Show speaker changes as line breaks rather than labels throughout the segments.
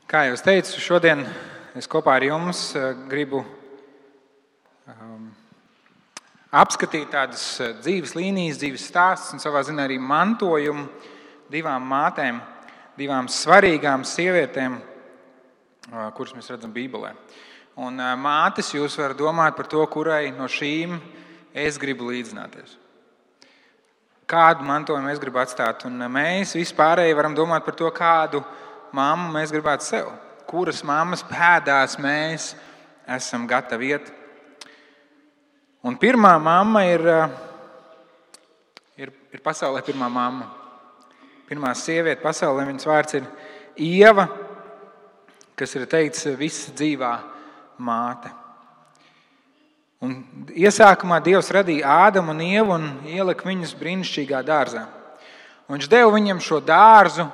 Kā jau es teicu, šodien es kopā ar jums gribu apskatīt tādas dzīves līnijas, dzīves stāstus un savā ziņā arī mantojumu divām mātēm, divām svarīgām sievietēm, kuras mēs redzam Bībelē. Un mātes, jūs varat domāt par to, kurai no šīm es gribu līdzināties. Kādu mantojumu es gribu atstāt, un mēs vispārēji varam domāt par to, kādu mammu mēs gribētu sev. Kuras mammas pēdās mēs esam gatavi iet. Un pirmā mamma ir pasaulē pirmā mamma. Pirmā sieviete pasaulē, viņas vārds ir Ieva, kas ir teikts visa dzīvā māte. Un iesākumā Dievs radīja Ādamu un Ievu un ielika viņus brīnišķīgā dārzā. Un viņš deva viņiem šo dārzu,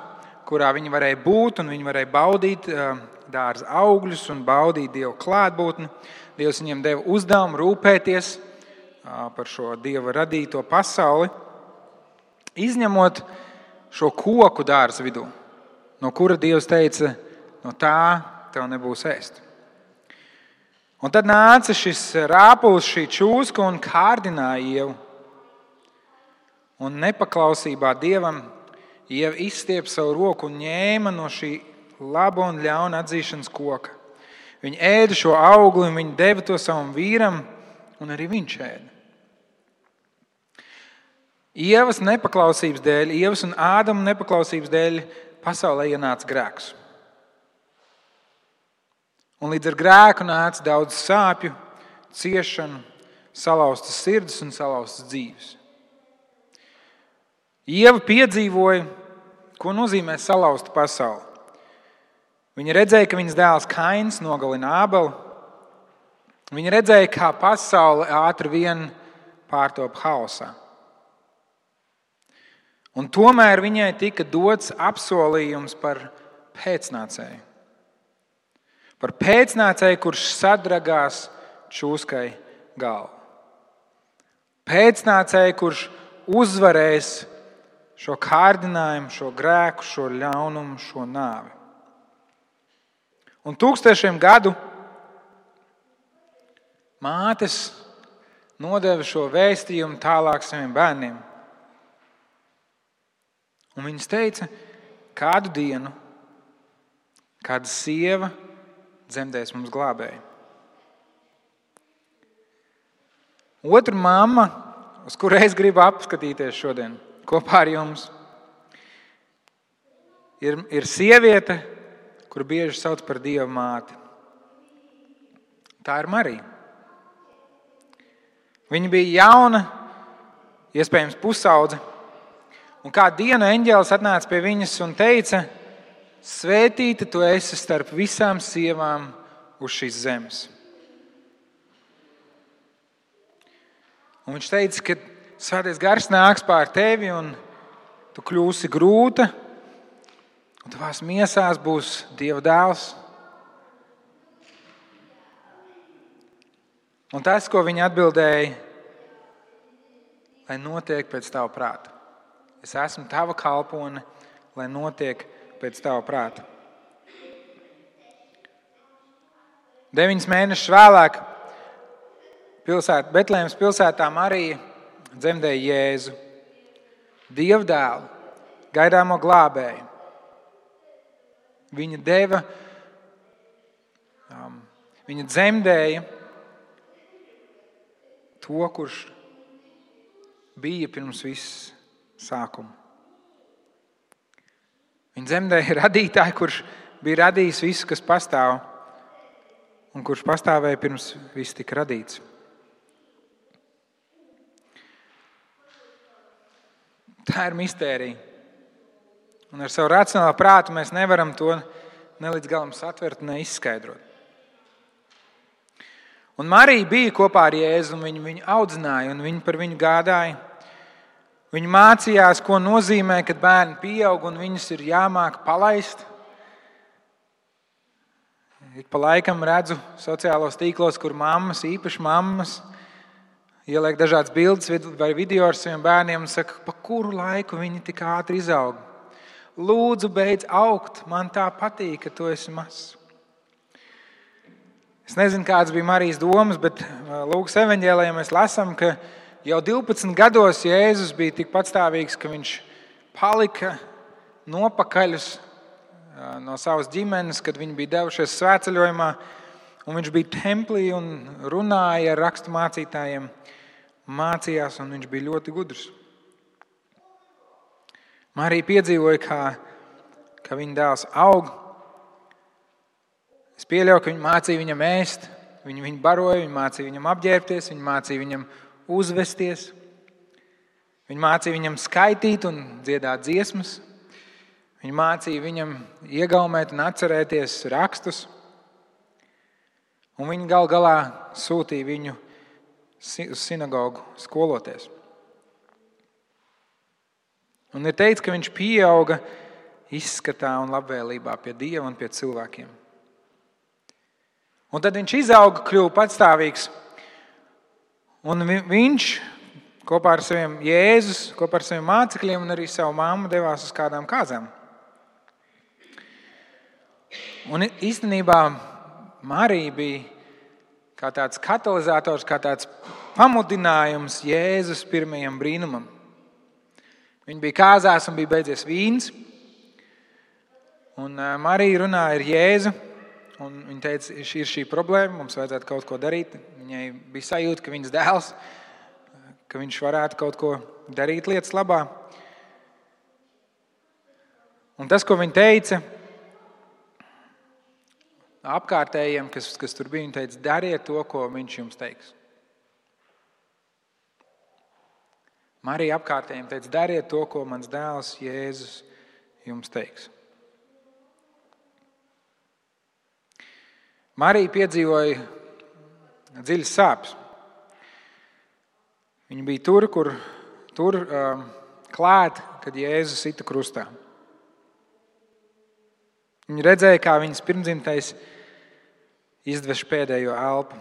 kurā viņi varēja būt un viņi varēja baudīt dārza augļus un baudīt Dieva klātbūtni. Dievs viņiem deva uzdevumu rūpēties par šo Dieva radīto pasauli, izņemot šo koku dārza vidū, no kura Dievs teica, no tā tev nebūs ēst. Un tad nāca šis rāpulis, šī čūska un kārdināja Ievu. Un nepaklausībā Dievam Ieva izstiep savu roku un ņēma no šī laba un ļauna atzīšanas koka. Viņa ēda šo augli un viņa deva to savam vīram, un arī viņš ēda. Ievas nepaklausības dēļ, Ievas un Ādama nepaklausības dēļ pasaulē ienāca grēks. Un līdz ar grēku nāca daudz sāpju, ciešanu, salauztas sirds un salauztas dzīves. Ieva piedzīvoja, ko nozīmē salauzta pasaule. Viņa redzēja, ka viņas dēls Kains nogalina Ābeli. Viņa redzēja, kā pasaule ātri vien pārtop haosā. Un tomēr viņai tika dots apsolījums par pēcnācēju. Par pēcnācēju, kurš sadragās čūskai galvu. Pēcnācēju, kurš uzvarēs šo kārdinājumu, šo grēku, šo ļaunumu, šo nāvi. Un 1000 gadu mātes nodeva šo vēstījumu tālāk saviem bērniem. Un viņas teica, kādu dienu, kāda sieva dzemdēs mums glābēju. Otra mamma, uz kuru es gribu apskatīties šodien kopā ar jums, ir sieviete, kuru bieži sauc par Dieva māti. Tā ir Marija. Viņa bija jauna, iespējams pusaudze, un kādu dienu eņģēlis atnāca pie viņas un teica, svētīta tu esi starp visām sievām uz šīs zemes. Un viņš teica, ka Svētais Gars nāks pār tevi un tu kļūsi grūta, un tavās miesās būs Dieva dēls. Un tas, ko viņa atbildēja, lai notiek pēc tava prāta. Es esmu tava kalpone, lai notiek pēc tava prāta. 9 mēnešus vēlāk Betlēmas pilsētā Marija dzemdēja Jēzu, Dieva dēlu, gaidāmo glābēju. Viņa dzemdēja to, kurš bija pirms viss sākuma. Viņa dzemdēja radītāju, kurš bija radījis visu, kas pastāv, un kurš pastāvēja pirms viss tika radīts. Tā ir mistērija. Un ar savu racionālo prātu mēs nevaram to ne līdz galam satvert, ne izskaidrot. Un Marija bija kopā ar Jēzu, un viņu audzināja, un viņa par viņu gādāja. Viņa mācījās, ko nozīmē, kad bērni pieaug, un viņus ir jāmāk palaist. Ik pa laikam redzu sociālos tīklos, kur mammas, īpaši mammas, ieliek dažādas bildes vai video ar saviem bērniem un saka, pa kuru laiku viņi tik ātri izaug. Lūdzu, beidz augt, man tā patīk, ka tu esi mazs. Es nezinu, kādas bija Marijas domas, bet Lūkas evaņģēlijā mēs lasām, ka jau 12 gados Jēzus bija tik patstāvīgs, ka viņš palika nopakaļus no savas ģimenes, kad viņi bija devušies svētceļojumā, un viņš bija templī un runāja ar rakstu mācītājiem, mācījās, un viņš bija ļoti gudrs. Marija piedzīvoja, kā viņa dēls aug. Es pieļauju, ka viņa mācīja viņam ēst, viņa baroja, viņa mācīja viņam apģērbties, viņa mācīja viņam uzvesties, viņa mācīja viņam skaitīt un dziedāt dziesmas, viņa mācīja viņam iegaumēt un atcerēties rakstus, un viņa gal galā sūtīja viņu uz sinagogu skoloties. Un ir teikts, ka viņš pieauga izskatā un labvēlībā pie Dieva un pie cilvēkiem. Un tad viņš izauga, kļuva patstāvīgs. Un viņš kopā ar saviem Jēzus, kopā ar saviem mācekļiem un arī savu mammu devās uz kādām kāzām. Un īstenībā Marija bija kā tāds katalizators, kā tāds pamudinājums Jēzus pirmajam brīnumam. Viņa bija kāzās un bija beidzies vīns. Un Marija runāja ar Jēzu. Un viņa teica, ir šī problēma, mums vajadzētu kaut ko darīt. Viņai bija sajūta, ka viņas dēls, ka viņš varētu kaut ko darīt lietas labā. Un tas, ko viņa teica apkārtējiem, kas tur bija, viņa teica, dariet to, ko viņš jums teiks. Marija apkārtējiem teica, dariet to, ko mans dēls Jēzus jums teiks. Marija piedzīvoja dziļas sāpes. Viņa bija tur klāt, kad Jēzus sita krustā. Viņa redzēja, kā viņas pirmdzimtais izdveš pēdējo elpu.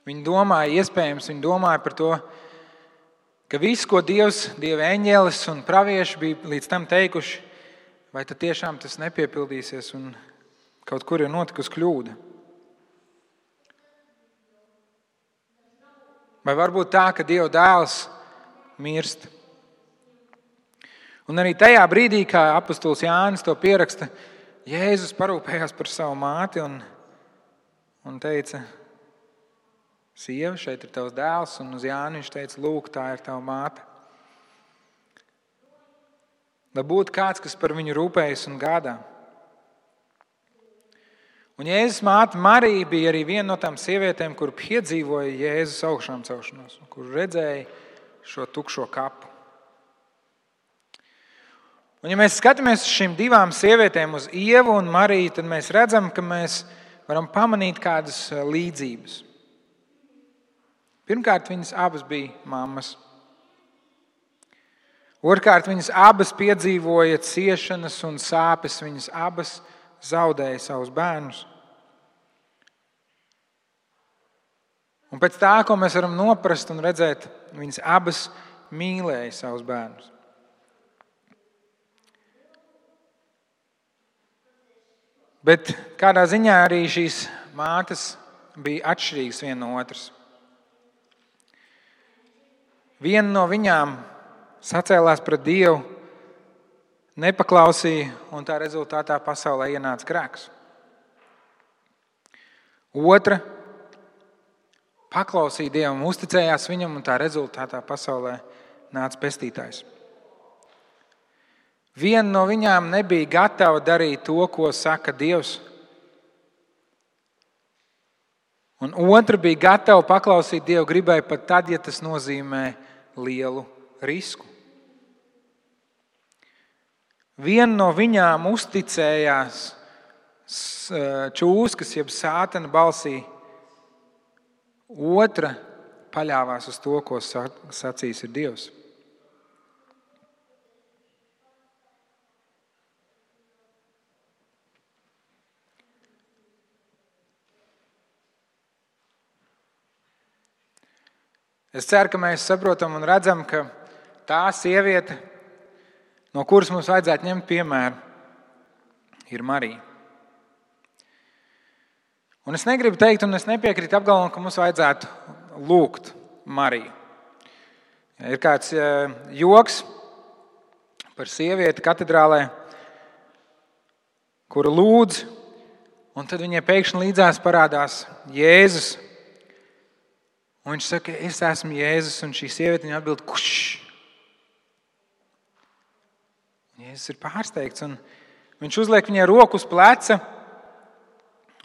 Viņa domāja par to, ka viss, ko Dieva eņģelis un pravieši bija līdz tam teikuši, vai tad tiešām tas nepiepildīsies un kaut kur ir notikusi kļūda? Vai varbūt tā, ka Dieva dēls mirst? Un arī tajā brīdī, kā apostols Jānis to pieraksta, Jēzus parūpējās par savu māti un teica, sieva, šeit ir tavs dēls, un uz Jāni viņš teica, lūk, tā ir tava māte. Lai būtu kāds, kas par viņu rūpējas un gādā. Un Jēzus māte Marija bija arī viena no tām sievietēm, kur piedzīvoja Jēzus augšām celšanos, kur redzēja šo tukšo kapu. Un ja mēs skatāmies uz šīm divām sievietēm, uz Ievu un Mariju, tad mēs redzam, ka mēs varam pamanīt kādas līdzības. Pirmkārt, viņas abas bija mammas. Otrkārt, viņas abas piedzīvoja ciešanas un sāpes, viņas abas zaudēja savus bērnus. Un pēc tā, ko mēs varam noprast un redzēt, viņas abas mīlēja savus bērnus. Bet kādā ziņā arī šīs mātes bija atšķirīgas viena no otras. Viena no viņām sacēlās pret Dievu, nepaklausīja, un tā rezultātā pasaulē ienāca grēks. Otra paklausīja Dievam, uzticējās viņam, un tā rezultātā pasaulē nāca pestītājs. Viena no viņām nebija gatava darīt to, ko saka Dievs, un otra bija gatava paklausīt Dievu gribai pat tad, ja tas nozīmē lielu risku. Viena no viņām uzticējās čūskas, jeb sātana balsī. Otra paļāvās uz to, ko sacīs ir Dievs. Es ceru, ka mēs saprotam un redzam, ka tā sieviete, no kuras mums vajadzētu ņemt piemēru, ir Marija. Un es negribu teikt, un es nepiekrītu apgalvojumam, ka mums vajadzētu lūgt Mariju. Ir kāds joks par sievieti katedrālē, kura lūdz, un tad viņai pēkšņi līdzās parādās Jēzus. Un viņš saka, es esmu Jēzus, un šī sieviete viņai atbild, kurš? Jēzus ir pārsteigts, un viņš uzliek viņai roku uz pleca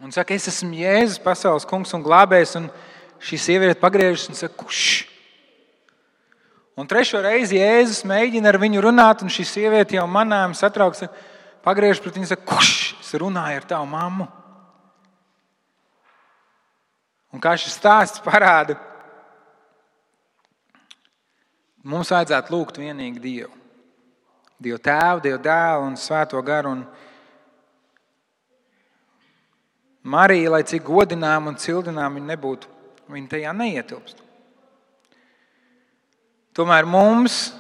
un saka, es esmu Jēzus, pasaules kungs un glābējs, un šī sieviete pagriežas un saka, kurš? Un trešo reizi Jēzus mēģina ar viņu runāt, un šī sieviete jau manām satrauks, pagriežas pret viņu un saka, kurš? Es runāju ar tavu mammu. Un kā šis stāsts parāda, mums vajadzētu lūgt vienīgi Dievu. Dievu Tēvu, Dievu Dēlu un Svēto garu. Un Marija, lai cik godinām un cildinām viņa nebūtu, viņa tajā neietilpst. Tomēr mums,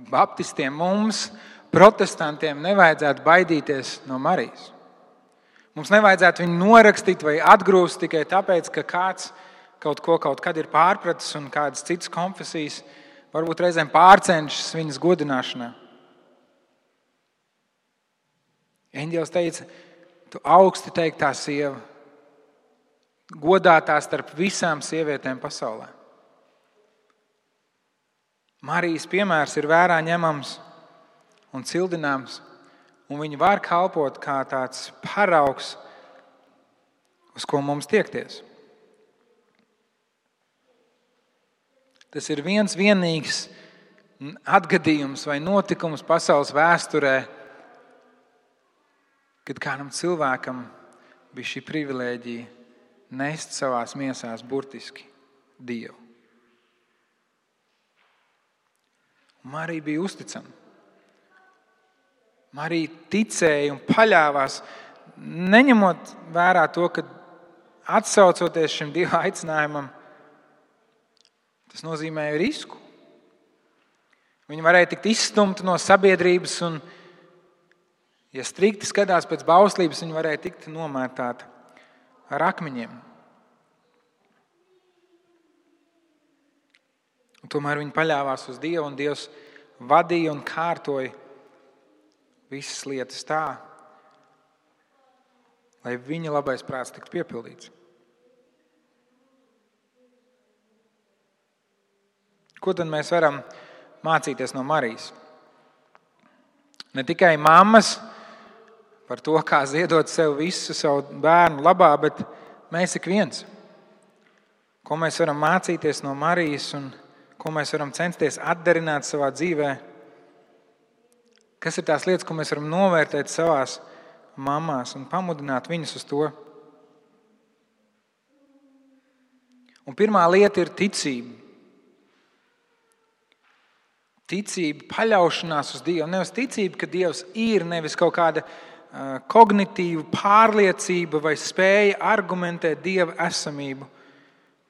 baptistiem, mums, protestantiem, nevajadzētu baidīties no Marijas. Mums nevajadzētu viņu norakstīt vai atgrūst tikai tāpēc, ka kāds kaut kad ir pārpratis un kādas citas konfesijas varbūt reizēm pārcenšas viņas godināšanā. Eņģelis teica, tu augsti teiktā sieva, godātā starp visām sievietēm pasaulē. Marijas piemērs ir vērā ņemams un cildināms, un viņa var kalpot kā tāds paraugs, uz ko mums tiekties. Tas ir viens vienīgs atgadījums vai notikums pasaules vēsturē, kad kādam cilvēkam bija šī privilēģija nest savās miesās burtiski Dievu. Marija bija uzticama. Marija ticēja un paļāvās, neņemot vērā to, ka atsaucoties šim Dieva aicinājumam, tas nozīmēja risku. Viņa varēja tikt izstumta no sabiedrības un, ja strikti skatās pēc bauslības, viņa varēja tikt nomētāta ar akmeņiem. Un tomēr viņa paļāvās uz Dievu, un Dievs vadīja un kārtoja visas lietas tā, lai viņa labais prāts tiktu piepildīts. Ko tad mēs varam mācīties no Marijas? Ne tikai mammas par to, kā ziedot sev visu savu bērnu labā, bet mēs ik viens. Ko mēs varam mācīties no Marijas un ko mēs varam censties atdarināt savā dzīvē? Kas ir tās lietas, ko mēs varam novērtēt savās mamās un pamudināt viņus uz to? Un pirmā lieta ir ticība. Ticība, paļaušanās uz Dievu. Nevis ticība, ka Dievs ir, nevis kaut kāda kognitīva pārliecība vai spēja argumentēt Dieva esamību,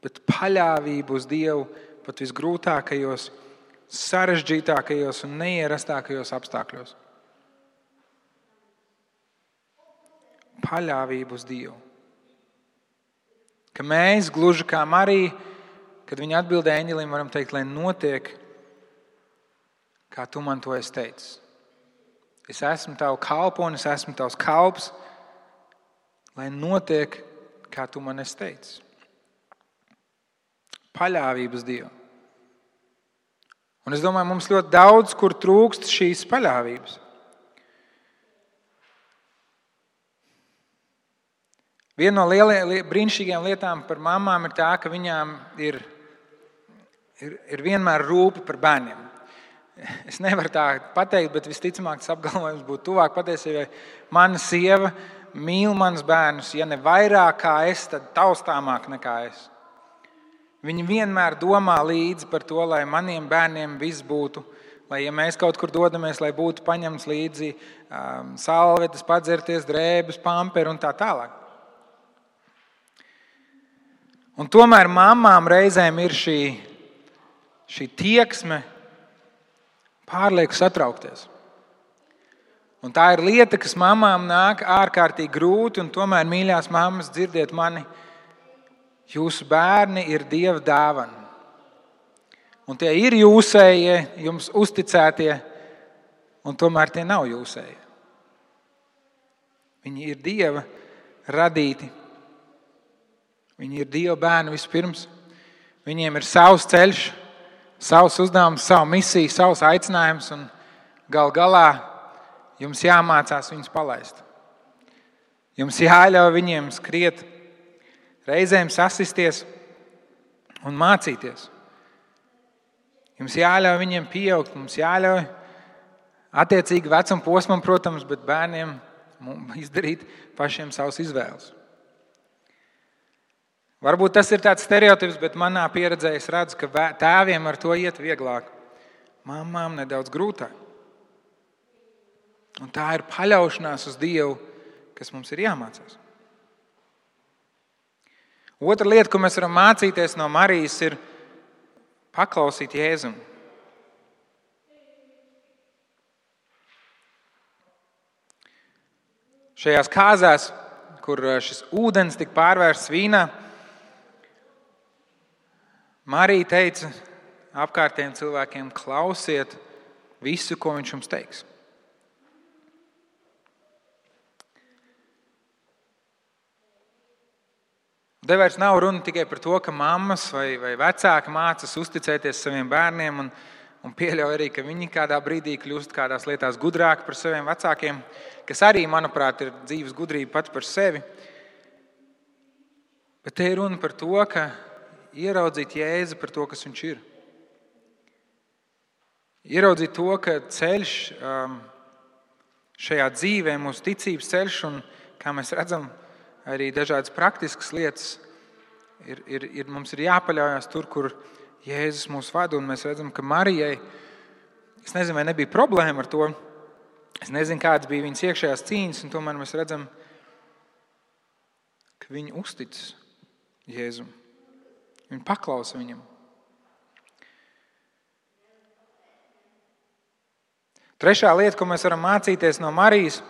bet paļāvība uz Dievu pat visgrūtākajos, sarežģītākajos un neierastākajos apstākļos. Paļāvība uz Dievu. Ka mēs, gluži kā Marija, kad viņa atbildēja eņģelim, varam teikt, lai notiek, kā tu man to esi teicis. Es esmu tavu kalponis, es esmu tavs kalps, lai notiek, kā tu man esi teicis. Paļāvība uz Dievu. Un es domāju, mums ļoti daudz, kur trūkst šīs paļāvības. Viena no brīnišķīgajām lietām par mamām ir tā, ka viņām ir vienmēr rūpe par bērniem. Es nevaru tā pateikt, bet visticamāk tas apgalvojums būtu tuvāk patiesībai. Mana sieva mīl manus bērnus, ja ne vairāk kā es, tad taustāmāk nekā es. Viņi vienmēr domā līdzi par to, lai maniem bērniem viss būtu, lai ja mēs kaut kur dodamies, lai būtu paņemts līdzi salvetes, padzerties, drēbes, pamperi un tā tālāk. Un tomēr mamām reizēm ir šī tieksme pārlieku satraukties. Un tā ir lieta, kas mamām nāk ārkārtīgi grūti, un tomēr, mīļās mammas, dzirdiet mani, jūsu bērni ir Dieva dāvana. Un tie ir jūsējie, jums uzticētie, un tomēr tie nav jūsējie. Viņi ir Dieva radīti. Viņi ir Dieva bērni vispirms. Viņiem ir savs ceļš, savs uzdevums, savu misiju, savs aicinājums, un gal galā jums jāmācās viņus palaist. Jums jāļauj viņiem skriet, reizēm sasisties un mācīties. Jums jāļauj viņiem pieaugt, mums jāļauj attiecīgi vecuma posmam, protams, bet bērniem izdarīt pašiem savas izvēles. Varbūt tas ir tāds stereotips, bet manā pieredzē es redzu, ka tēviem ar to iet vieglāk. Mamām nedaudz grūtāk. Un tā ir paļaušanās uz Dievu, kas mums ir jāmācās. Otra lieta, ko mēs varam mācīties no Marijas, ir paklausīt Jēzum. Šajās kāzās, kur šis ūdens tika pārvērsts vīnā, Marija teica apkārtējiem cilvēkiem: klausiet visu, ko viņš jums teiks. Te vairs nav runa tikai par to, ka mammas vai vecāki mācas uzticēties saviem bērniem un pieļauj arī, ka viņi kādā brīdī kļūst kādās lietās gudrāki par saviem vecākiem, kas arī, manuprāt, ir dzīves gudrība pats par sevi. Bet te ir runa par to, ka ieraudzīt Jēzu par to, kas viņš ir. Ieraudzīt to, ka ceļš šajā dzīvē, mūsu ticības ceļš, un kā mēs redzam, arī dažādas praktiskas lietas, mums ir jāpaļaujas tur, kur Jēzus mūs vada, un mēs redzam, ka Marijai, es nezinu, vai nebija problēma ar to, es nezinu, kādas bija viņas iekšējās cīņas, un tomēr mēs redzam, ka viņa uzticas Jēzum. Viņa paklausa viņam. Trešā lieta, ko mēs varam mācīties no Marijas,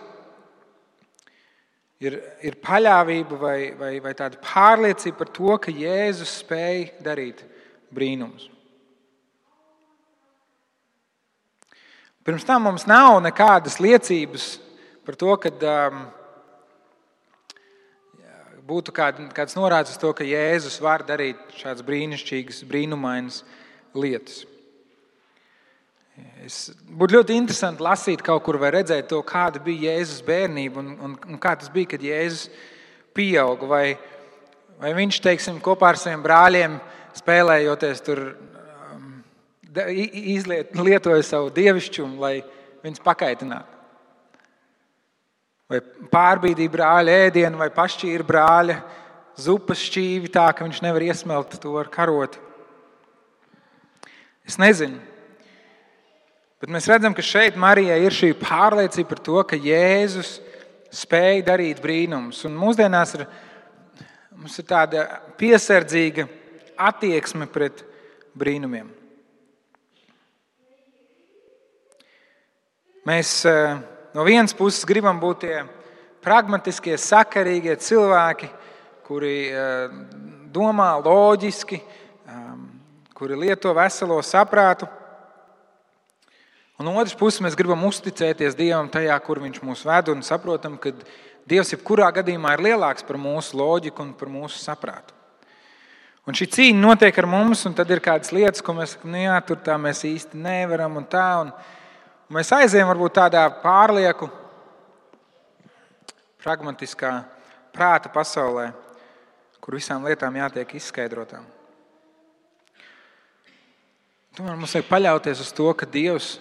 ir paļāvība vai tāda pārliecība par to, ka Jēzus spēj darīt brīnumus. Pirms tam mums nav nekādas liecības par to, ka būtu kāds norādes uz to, ka Jēzus var darīt šādas brīnišķīgas, brīnumainas lietas. Būtu ļoti interesanti lasīt kaut kur vai redzēt to, kāda bija Jēzus bērnība un kā tas bija, kad Jēzus pieauga. Vai viņš, teiksim, kopā ar saviem brāļiem spēlējoties tur lietoja savu dievišķumu, lai viņus pakaitinātu. Vai pārbīdīja brāļa ēdienu, vai pašķīra brāļa zupas šķīvi tā, ka viņš nevar iesmelt to ar karoti. Es nezinu. Bet mēs redzam, ka šeit Marijai ir šī pārliecība par to, ka Jēzus spēj darīt brīnumus. Un mūsdienās mums ir tāda piesardzīga attieksme pret brīnumiem. Mēs no vienas puses gribam būt tie pragmatiskie, sakarīgie cilvēki, kuri domā loģiski, kuri lieto veselo saprātu. Un no otras puses mēs gribam uzticēties Dievam tajā, kur viņš mūs ved, un saprotam, ka Dievs jebkurā gadījumā ir lielāks par mūsu loģiku un par mūsu saprātu. Un šī cīņa notiek ar mums, un tad ir kādas lietas, ko mēs sakam, jā, tur tā mēs īsti nevaram un tā. Un mēs aizējam varbūt tādā pārlieku, pragmatiskā prāta pasaulē, kur visām lietām jātiek izskaidrotām. Tomēr mums vajag paļauties uz to, ka Dievs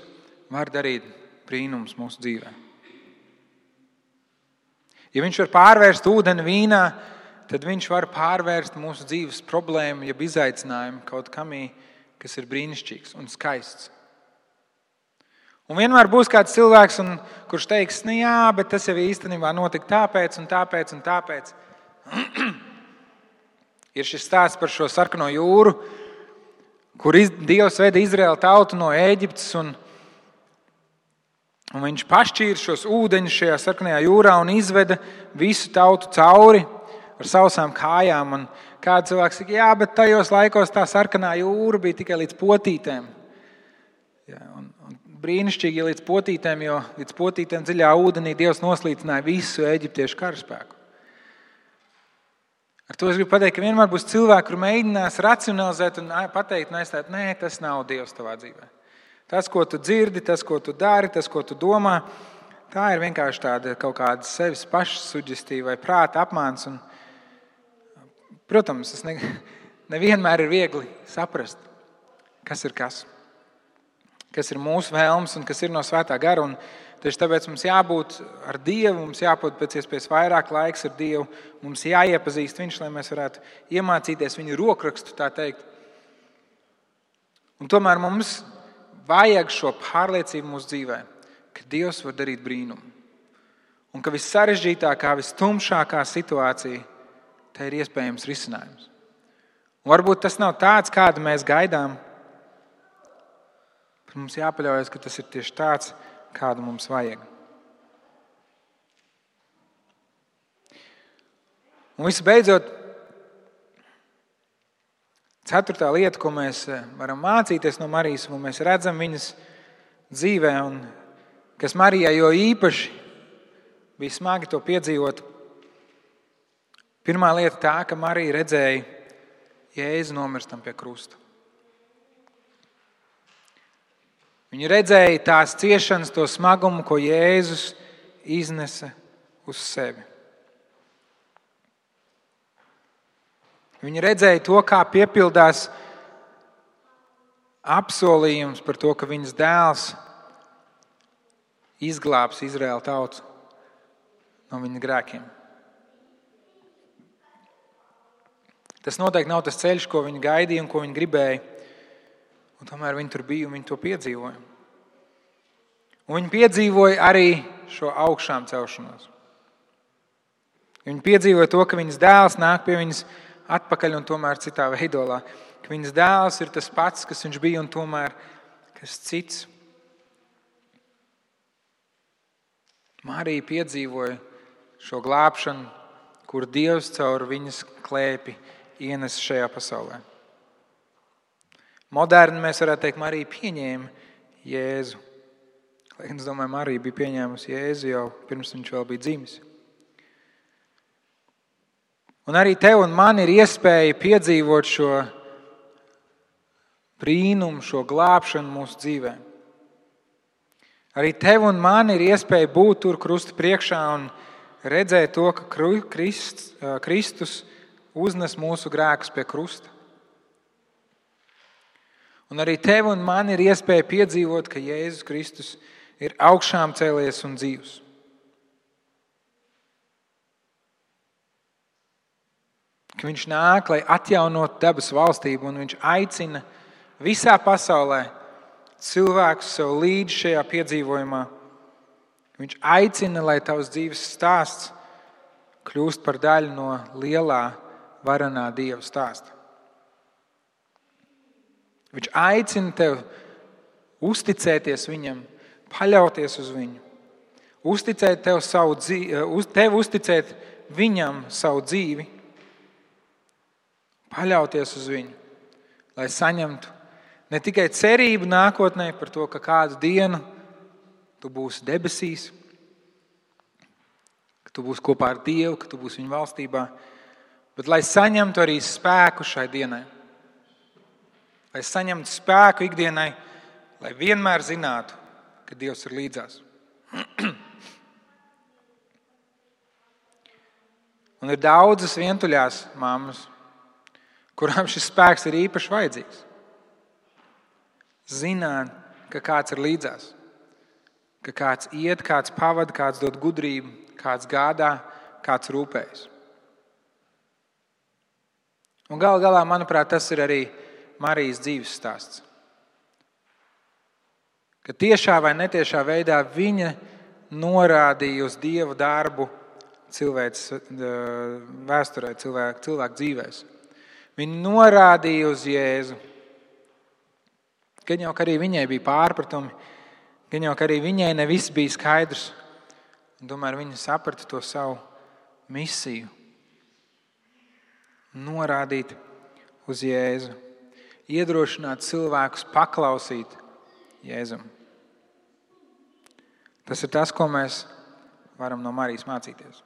var darīt brīnumus mūsu dzīvē. Ja viņš var pārvērst ūdeni vīnā, tad viņš var pārvērst mūsu dzīves problēmu, jeb izaicinājumu kaut kamī, kas ir brīnišķīgs un skaists. Un vienmēr būs kāds cilvēks, kurš teiks, jā, bet tas jau īstenībā notika tāpēc un tāpēc un tāpēc. Ir šis stāsts par šo sarkano jūru, kur Dievs veda Izraēlu tautu no Ēģiptes, un Un viņš pašķīra šos ūdeņus šajā sarkanajā jūrā un izveda visu tautu cauri ar sausām kājām. Un kāds cilvēks saka, jā, bet tajos laikos tā sarkanā jūra bija tikai līdz potītēm. Jā, un brīnišķīgi līdz potītēm, jo līdz potītēm dziļā ūdenī Dievs noslīcināja visu eģiptiešu karaspēku. Ar to es gribu pateikt, ka vienmēr būs cilvēki, kur mēģinās racionalizēt un pateikt, nē, tas nav Dievs tavā dzīvē. Tas, ko tu dzirdi, tas, ko tu dari, tas, ko tu domā, tā ir vienkārši tāda kaut kāda sevis pašsuģestīva vai prāta apmāns. Un, protams, tas nevienmēr ir viegli saprast, kas ir kas. Kas ir mūsu vēlmes un kas ir no svētā gara. Un tieši tāpēc mums jābūt ar Dievu, mums jābūt pēc iespējas vairāk laiks ar Dievu, mums jāiepazīst Viņš, lai mēs varētu iemācīties Viņa rokrakstu, tā teikt. Un tomēr mums vajag šo pārliecību mūsu dzīvē, ka Dievs var darīt brīnumu. Un ka vissarežģītākā, vistumšākā situācija, tā ir iespējams risinājums. Un varbūt tas nav tāds, kādu mēs gaidām, bet mums jāpaļaujas, ka tas ir tieši tāds, kādu mums vajag. Un visbeidzot, 4. lieta, ko mēs varam mācīties no Marijas, un mēs redzam viņas dzīvē, un kas Marijai jo īpaši bija smagi to piedzīvot. Pirmā lieta tā, ka Marija redzēja Jēzu nomirstam pie krusta. Viņa redzēja tās ciešanas, to smagumu, ko Jēzus iznesa uz sevi. Viņa redzēja to, kā piepildās apsolījums par to, ka viņas dēls izglābs Izraēlu tautu no viņa grēkiem. Tas noteikti nav tas ceļš, ko viņa gaidīja un ko viņa gribēja. Un tomēr viņi tur bija un viņi to piedzīvoja. Un viņi piedzīvoja arī šo augšām celšanos. Viņi piedzīvoja to, ka viņas dēls nāk pie viņas atpakaļ un tomēr citā veidolā. Ka viņas dēls ir tas pats, kas viņš bija un tomēr kas cits. Marija piedzīvoja šo glābšanu, kur Dievs caur viņas klēpi ienes šajā pasaulē. Moderni mēs varētu teikt, Marija pieņēma Jēzu. Lai es domāju, Marija bija pieņēmusi Jēzu jau pirms viņš vēl bija dzimis. Un arī tev un man ir iespēja piedzīvot šo brīnumu, šo glābšanu mūsu dzīvē. Arī tev un man ir iespēja būt tur krusta priekšā un redzēt to, ka Kristus uznes mūsu grēkus pie krusta. Un arī tev un man ir iespēja piedzīvot, ka Jēzus Kristus ir augšām cēlies un dzīvs. Ka viņš nāk, lai atjaunotu dabas valstību, un viņš aicina visā pasaulē cilvēkus sev līdzi šajā piedzīvojumā. Viņš aicina, lai tavs dzīves stāsts kļūst par daļu no lielā varenā Dieva stāsta. Viņš aicina tev uzticēties viņam, paļauties uz viņu, uzticēt tev uzticēt viņam savu dzīvi, paļauties uz viņu, lai saņemtu ne tikai cerību nākotnē par to, ka kādu dienu tu būsi debesīs, ka tu būsi kopā ar Dievu, ka tu būsi viņa valstībā, bet lai saņemtu arī spēku šai dienai. Lai saņemtu spēku ikdienai, lai vienmēr zinātu, ka Dievs ir līdzās. Un ir daudzas vientuļās mammas, kurām šis spēks ir īpaši vajadzīgs. Zināt, ka kāds ir līdzās, ka kāds iet, kāds pavada, kāds dod gudrību, kāds gādā, kāds rūpējas. Un gal galā, manuprāt, tas ir arī Marijas dzīves stāsts. Ka tiešā vai netiešā veidā viņa norādīja uz Dieva darbu cilvēks vēsturē, cilvēku dzīvēs. Viņa norādīja uz Jēzu. Gan jau arī viņai bija pārpratumi, Gan jau arī viņai ne viss bija skaidrs, un tomēr viņa saprata to savu misiju. Norādīt uz Jēzu, iedrošināt cilvēkus paklausīt Jēzum. Tas ir tas, ko mēs varam no Marijas mācīties.